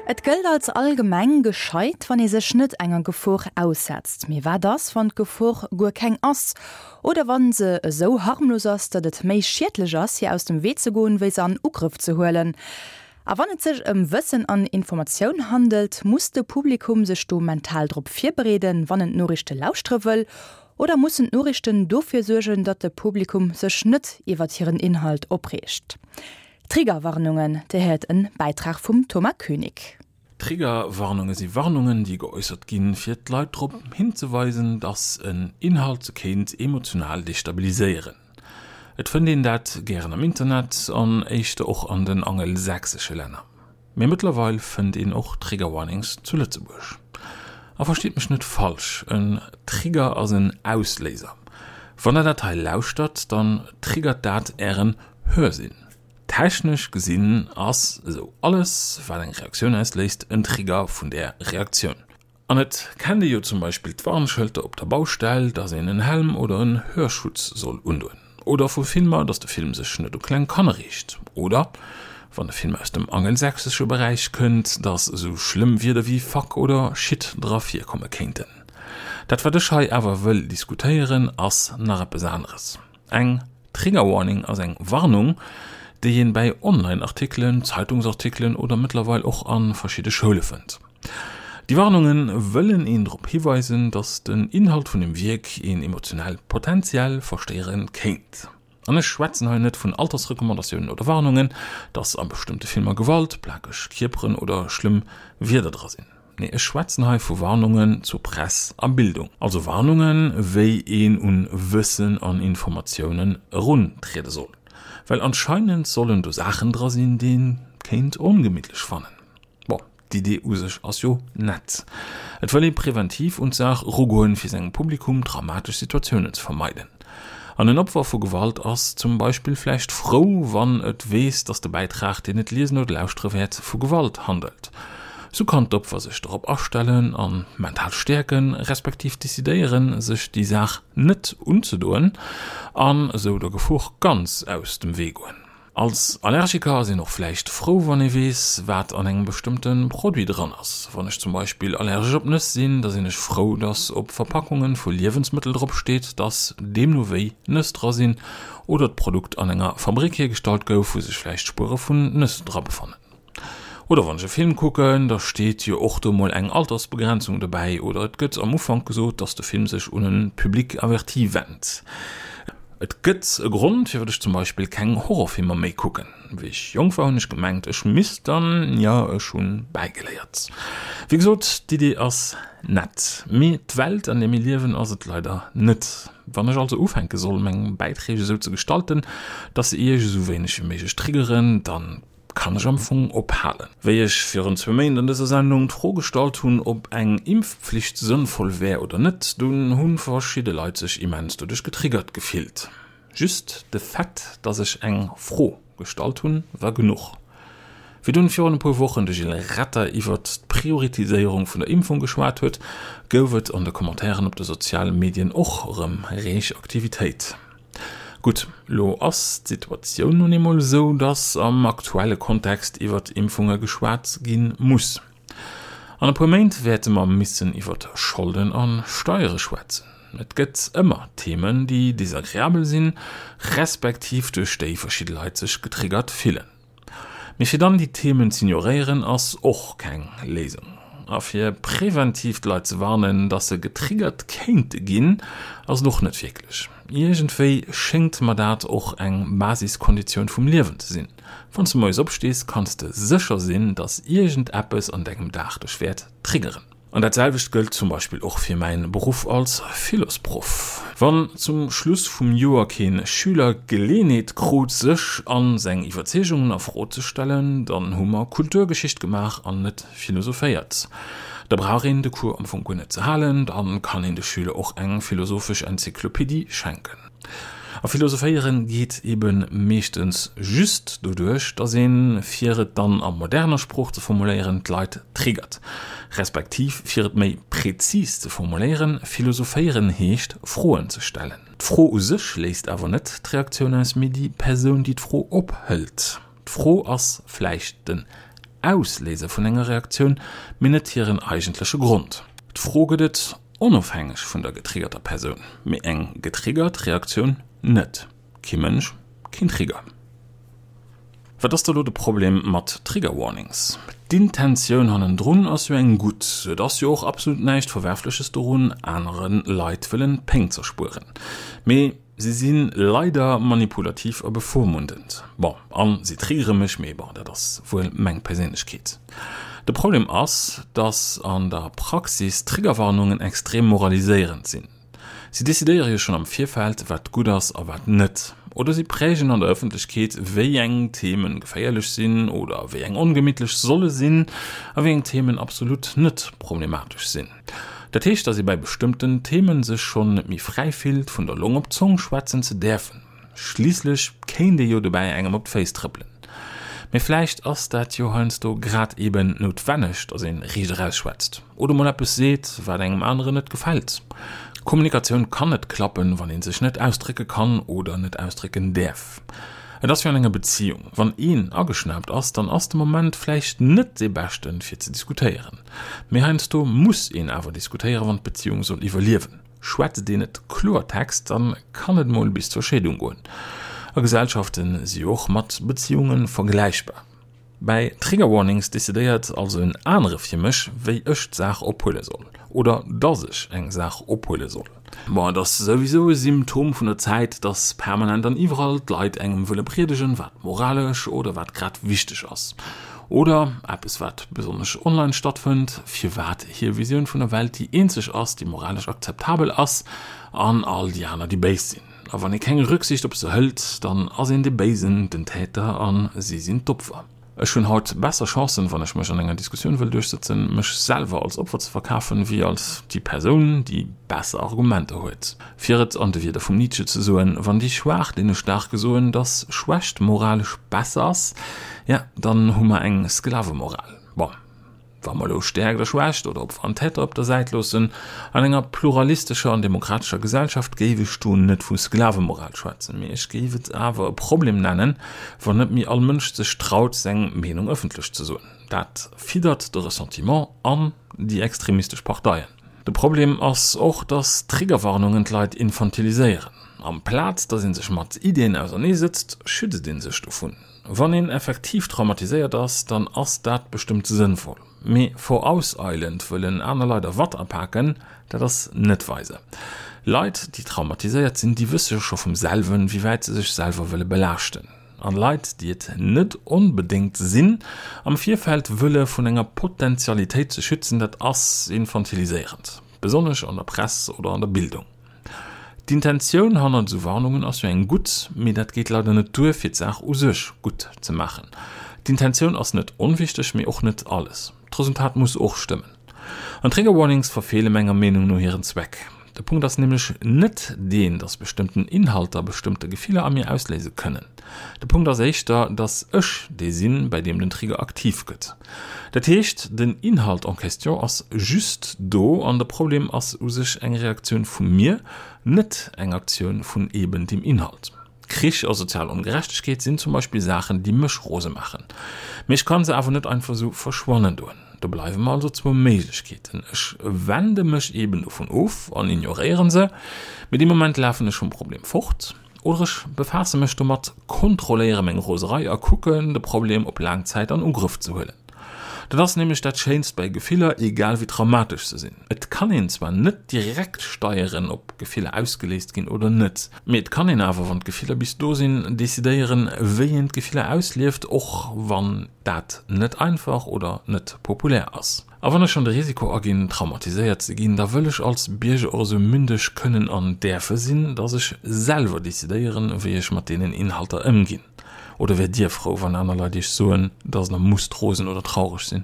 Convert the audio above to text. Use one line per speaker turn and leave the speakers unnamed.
Et gëllt als allgemeng gescheit, wann ee sech net enger Gefor aussetzt. Mee wat ass, wann d'Gefor guer keng ass? Oder wann se esou harmlos ass, datt et méi schiedlech ass, hir aus dem Wee ze goen, wéi se an Ugrëff ze huelen? A wann et sech ëm Wëssen an Informatioun handelt, muss de Publikum sech do mental drop virbereeden, wann en d'Noriichte lauschtere wëll? Oder mussen d'Noriichten dofir suergen, datt de Publikum sech net iwwert hiren Inhalt opreegt? Triggerwarnungen, Dir héiert en Bäitrag vum Thomas Koenig.
Triggerwarnunge si Warnungen, déi geäussert ginn, fir d'Leit drop hinzeweisen, dass en Inhalt se kéint emotional destabiliséieren. Et fënnt een dat gären am Internet an éischter och an den angelsächsesche Länner. Mee mëttlerweil fënnt een och Trigger Warnings zu Lëtzebuerg. A verstitt mech net falsch, en Trigger ass en Ausléiser. Wann der dat hei lauschtert, dann triggert dat ären Hörsinn. Technesch gesinn ass esou alles wat eng Reaktioun ausléist en Trigger vun där Reaktioun. An et kennt ee jo zum Beispill d'Warnschëlter op der Baustell, dass een en Helm oder en Hörschutz soll undoen. Oder vu Filmer, dass de Film sech net u kleng Kanner riicht. Oder, wann de Film aus dem angelsächsesche Beräich kënnt, dass esou schlëmm Wierder wéi fuck oder shit dra virkomme kéinten. Dat wat ech hei awer wëll diskutéieren, ass nach eppes aneres. Eng Trigger Warning ass eng Warnung, déi een bäi Online-Artikelen, Zeitungsartikelen oder mëttlerweil och a verschidde Schoule fënnt. Déi Warnunge wëllen een drop hiweisen, datt den Inhalt vun dem Wierk een emotionell potentiell verstéiere kéint. An ech schwätzen hei net vun Altersrecommandatiounen oder Warnungen, datt a bestëmmte Filmer Gewalt, plakeg Kierperen oder schlëmm Wierder dra sinn. Nee, ech schwätzen hei vu Warnungen zur Press a Bildung. Also Warnungen, wéi een un Wëssen an Informatiounen eruntriede soll. Well anscheinend sollen do Saachen dra sinn, déi een kéint ongemittlech fannen. Bon, d'Idee u sech ass jo nett. Et wëll ee preventiv un d'Saach erugoen, fir sengem Publikum dramatesch Situatiounen ze vermeiden. An en Opfer vu Gewalt ass zum Beispill vläicht frou, wann et weess, datt de Bäitrag, deen et liesen oder lauschtere wäert, vu Gewalt handelt. Sou kann d'Opfer sech dorop astellen a mental stäerken, respektiv decidéieren, sech déi Saach net unzedoen an esou der Gefor ganz aus dem Wee goen. Als Allergiker ass een och vläicht frou, wann ee weess, wat an engem bestëmmte Produit dran ass. Wann ech zum Beispill allergesch op Nëss sinn, da sinn ech frou, dass op Verpackunge vu Liewensmëttel drop steet, dass deemno wéi Nëss dra sinn oder d'Produkt an enger Fabrick hiergestallt gouf, wou sech vläicht Spuere vun Nëss dra befannen. Oder wann ech e Film kucken, da steet jo och do mol eng Altersbegrenzung dobäi oder et gëtt am Ufank gesot, dass de Film sech un e Public averti wennt. Et gëtt e Grond, firwat ech zum Beispill keng Horrorfilmer méi kucken. Wéi ech jonk war, hunn ech gemengt, ech misst dann, jo, ech hunn bäigeléiert. Wéi gesot, d'Idee ass nett, mee d'Welt, an där mir liewen, ass et leider net. Wann ech also ufänke soll, meng Bäiträg esou ze gestalten, dass se iech esou wéineg wéi méiglech triggeren, dann kann ech am Fong ophalen. Wéi ech virun zwou Méint an dëser Sendung d'Fro gestallt hunn, ob eng Impfpflicht sënnvoll wär oder net, dunn hu verschidde Leit sech immens doduerch getriggert gefillt. Just de Fait, dass ech eng Fro gestallt hunn, war genuch. Wéi dunn virun e puer Wochen de Gilles Retter iwwert d'Prioritiséierung vun der Impfung geschwat huet, gouf et an de Commentairen op de soziale Medien och erëm reeg Aktivitéit. Gutt, lo ass d'Situatioun nun eemol esou, datt am aktuelle Kontext iwwert Impfunge geschwat gi muss. An e puer Méint wäerte mer missen iwwert Scholden a Steiere schwätzen. Et gëtt ëmmer Themen, déi desagreabel sinn, respektiv duerch déi verschidde Leit sech getriggert fillen. Mee fir dann déi Themen z'ignoréieren ass och keng Léisung. A fir präventiv d'Leit ze warnen, dass se getriggert kéinte ginn, ass et och net wierklech. Iergendwéi schéngt mer dat och eng Basiskonditioun vum Liewen ze sinn. Wann s de moies opstees, kanns de sécher sinn, dass iergendeppes an dengem Dag dech wäert triggeren. An dat selwecht gëllt zum Beispill och fir mäin Beruff als Philosproff. Wann zum Schluss vum Joer keen Schüler d'Geleenheet krut sech an seng Iwwerzeegungen a Fro ze stellen, dann hu mer Kulturgeschicht gemaach an net philosophéiert. Da brauch een de Cours am Fong guer net ze halen, dann kann een de Schüler och eng philosophesch Enzyklopedie schenken. A philosophéieren geet eben meeschtens just doduerch, dass een, fir et dann a moderner Sprooch ze formuléieren, d'Leit triggert. Respektiv, fir et méi prezis ze formuléieren, philosophéieren heescht Froen ze stellen. D'Fro u sech léist awer net d'Reaktioun aus, mee déi Persoun, déi d'Fro ophëlt. D'Fro ass vläicht den. Ausléiser vun enger Reaktioun, mee net hiren eigentleche Grond. D'Fro gëtt et onofhängeg vun der getriggerter Persoun, mee eng getriggert Reaktioun net. Kee Mënsch, keen Trigger. Wat ass da lo de Problem mat Trigger Warnings? D'Intentioun hannendrun ass jo eng gutt. Et ass jo och absolut näischt Verwerfleches dorun, anere Leit wëllen Péng z'erspueren. Mee si si leider manipulativ a bevormundend. Bon, an si triggere mech, mee bon, dat ass wuel meng Perséinlechkeet. De Problem ass, dass an der Praxis Triggerwarnungen extrem moraliséierend sinn. Si decidéiere jo schonn am Virfeld, wat gutt ass a wat net. Oder si prägen an der Ëffentlechkeet, wéi eng Themen geféierlech sinn oder wéi eng ongemittlech solle sinn a wéi eng Themen absolut net problematesch sinn. Dat heescht, datt ee bei bestëmmten Themen sech schonn net méi fräi fillt, vun der Long op d'Zong schwätzen ze däerfen. Schliisslech kéint ee jo dobäi engem op d'Féiss trëppelen. Mee vläicht ass dat jo heiansdo grad eben noutwenneg, datt ee riicht eraus schwätzt oder mol eppes seet, wat engem aneren net gefält. Kommunikatioun kann net klappen, wann ee sech net ausdrécke kann oder net ausdrécken däerf. Et ass wéi an enger Beziung, wann een ageschnaapt ass, dann ass de Moment vläicht net dee beschten, fir ze diskutéieren. Mee heiansdo muss een awer diskutéieren, wann d'Beziung soll iwwerliewen. Schwätzt een et Kloertext, dann kann et mol bis zur Scheedung goen. A Gesellschaften si jo och mat Beziehunge vergläichbar. Bäi Trigger Warnings decidéiert also en anere fir mech, wéi ech d'Saach ophuele soll, oder dass ech eng Saach ophuele soll. Bon, et ass souwisou e Symptom vun der Zäit, dass permanent an iwwerall d'Leit engem wëlle priedegen, wat moralesch oder wat grad wichteg ass. Oder, eppes wat besonnesch online stattfënnt, firwat hir Visioun vun der Welt déi eenzeg ass, déi moralesch akzeptabel ass, an all déi aner déi béis sinn. A wann ee keng Rücksicht op se hëlt, dann ass een dee Béisen, den Täter, a si sinn d'Opfer. Ech hunn haut besser Chancen, wann ech mech an enger Diskussioun wëll duerchsëtzen, mech selwer als Opfer ze verkafen, wéi als déi Persoun, déi besser Argumenter huet. Fir et an de Wierder vum Nietzsche ze soen, Wann déi Schwaach deene Staarke soen, dass Schwächt moralesch besser ass, ja, dann hu mer eng Sklavemoral. Bon, wa mer elo Stäerkt a Schwächt oder Opfer an Täter op der Säit loossen, an enger pluralistescher an demokratescher Gesellschaft géif ech do net vu Sklavemoral schwätzen, mee ech géif et awer e Problem nennen, wann net méi all Mënsch sech traut, seng Meenung ëffentlech ze soen. Dat fiddert de Ressentiment an déi extremistesch Parteien. De Problem ass och, dass Triggerwarnungen d'Leit infantiliséieren. Amplaz dass ee sech mat Iddien ausernee sëtzt, schützt ee sech dovun. Wann een effektiv traumatiséiert ass, dann ass dat bestëmmt sënnvoll. Mee vorauseilend wëllen aner Leit a Watt apaken, dat ass net weise. Leit, déi traumatiséiert sinn, déi wësse jo scho vum selwen, wéi wäit se sech selwer wëlle belaaschten. An Leit, déi et net onbedéngt sinn, am Virfeld wëlle vun enger Potentialitéit ze schützen, dat ass infantiliséierend, besonnesch an der Press oder an der Bildung. D'Intentioun hannert esou Warnungen ass jo eng gutt, mee dat geet leider net duer, fir d'Saach u sech gutt ze maachen. D'Intentioun ass net onwichteg, mee och net alles. D'Resultat muss och stëmmen. An Trigger Warnings verfeele menger Meenung no hiren Zweck. De Punkt ass nämlech net deen, dass bestëmmten Inhalter bestëmmte Gefiller a mir ausléise kënnen. De Punkt ass éischter, dass ech dee sinn, bei deem den Trigger aktiv gëtt. Dat heescht, den Inhalt en question ass just do an de Problem ass u sech eng Reaktioun vu mir, net eng Aktioun vun eben deem Inhalt. Krich a sozial Ongerechtegkeet sinn zum Beispill Saachen, déi mech rose maachen. Mee ech kann se awer net einfach esou verschwannen doen. Do bleiwe mer also zwou Méiglechkeeten, Ech wende mech eben dovun of an ignoréieren se, mee dee Moment lafen ech vum Problem fort. Oder ech befaasse mech domat, kontrolléiere meng Roserei a kucken, de Problem op laang Zäit an Ugrëff ze huelen. Dat ass nämlech dat Schéinst bei Gefiller, egal wéi traumatesch se sinn. Et kann een zwar net direkt steieren, ob Gefiller ausgeléist ginn oder net, mee et kann een awer, wann d'Gefiller bis do sinn, decidéieren, wéi een d'Gefiller auslieft, och wann dat net einfach oder net populär ass. A wann ech schonn de Risiko aginn, traumatiséiert ze ginn, da wëll ech als Bierger och esou mündeg kënnen an däerfe sinn, dass ech selwer decidéieren, wéi ech mat deenen Inhalter ëmginn. Oder wäert Dir frou, wann aner Leit Iech soen, dass Der musst rosen oder traureg sinn?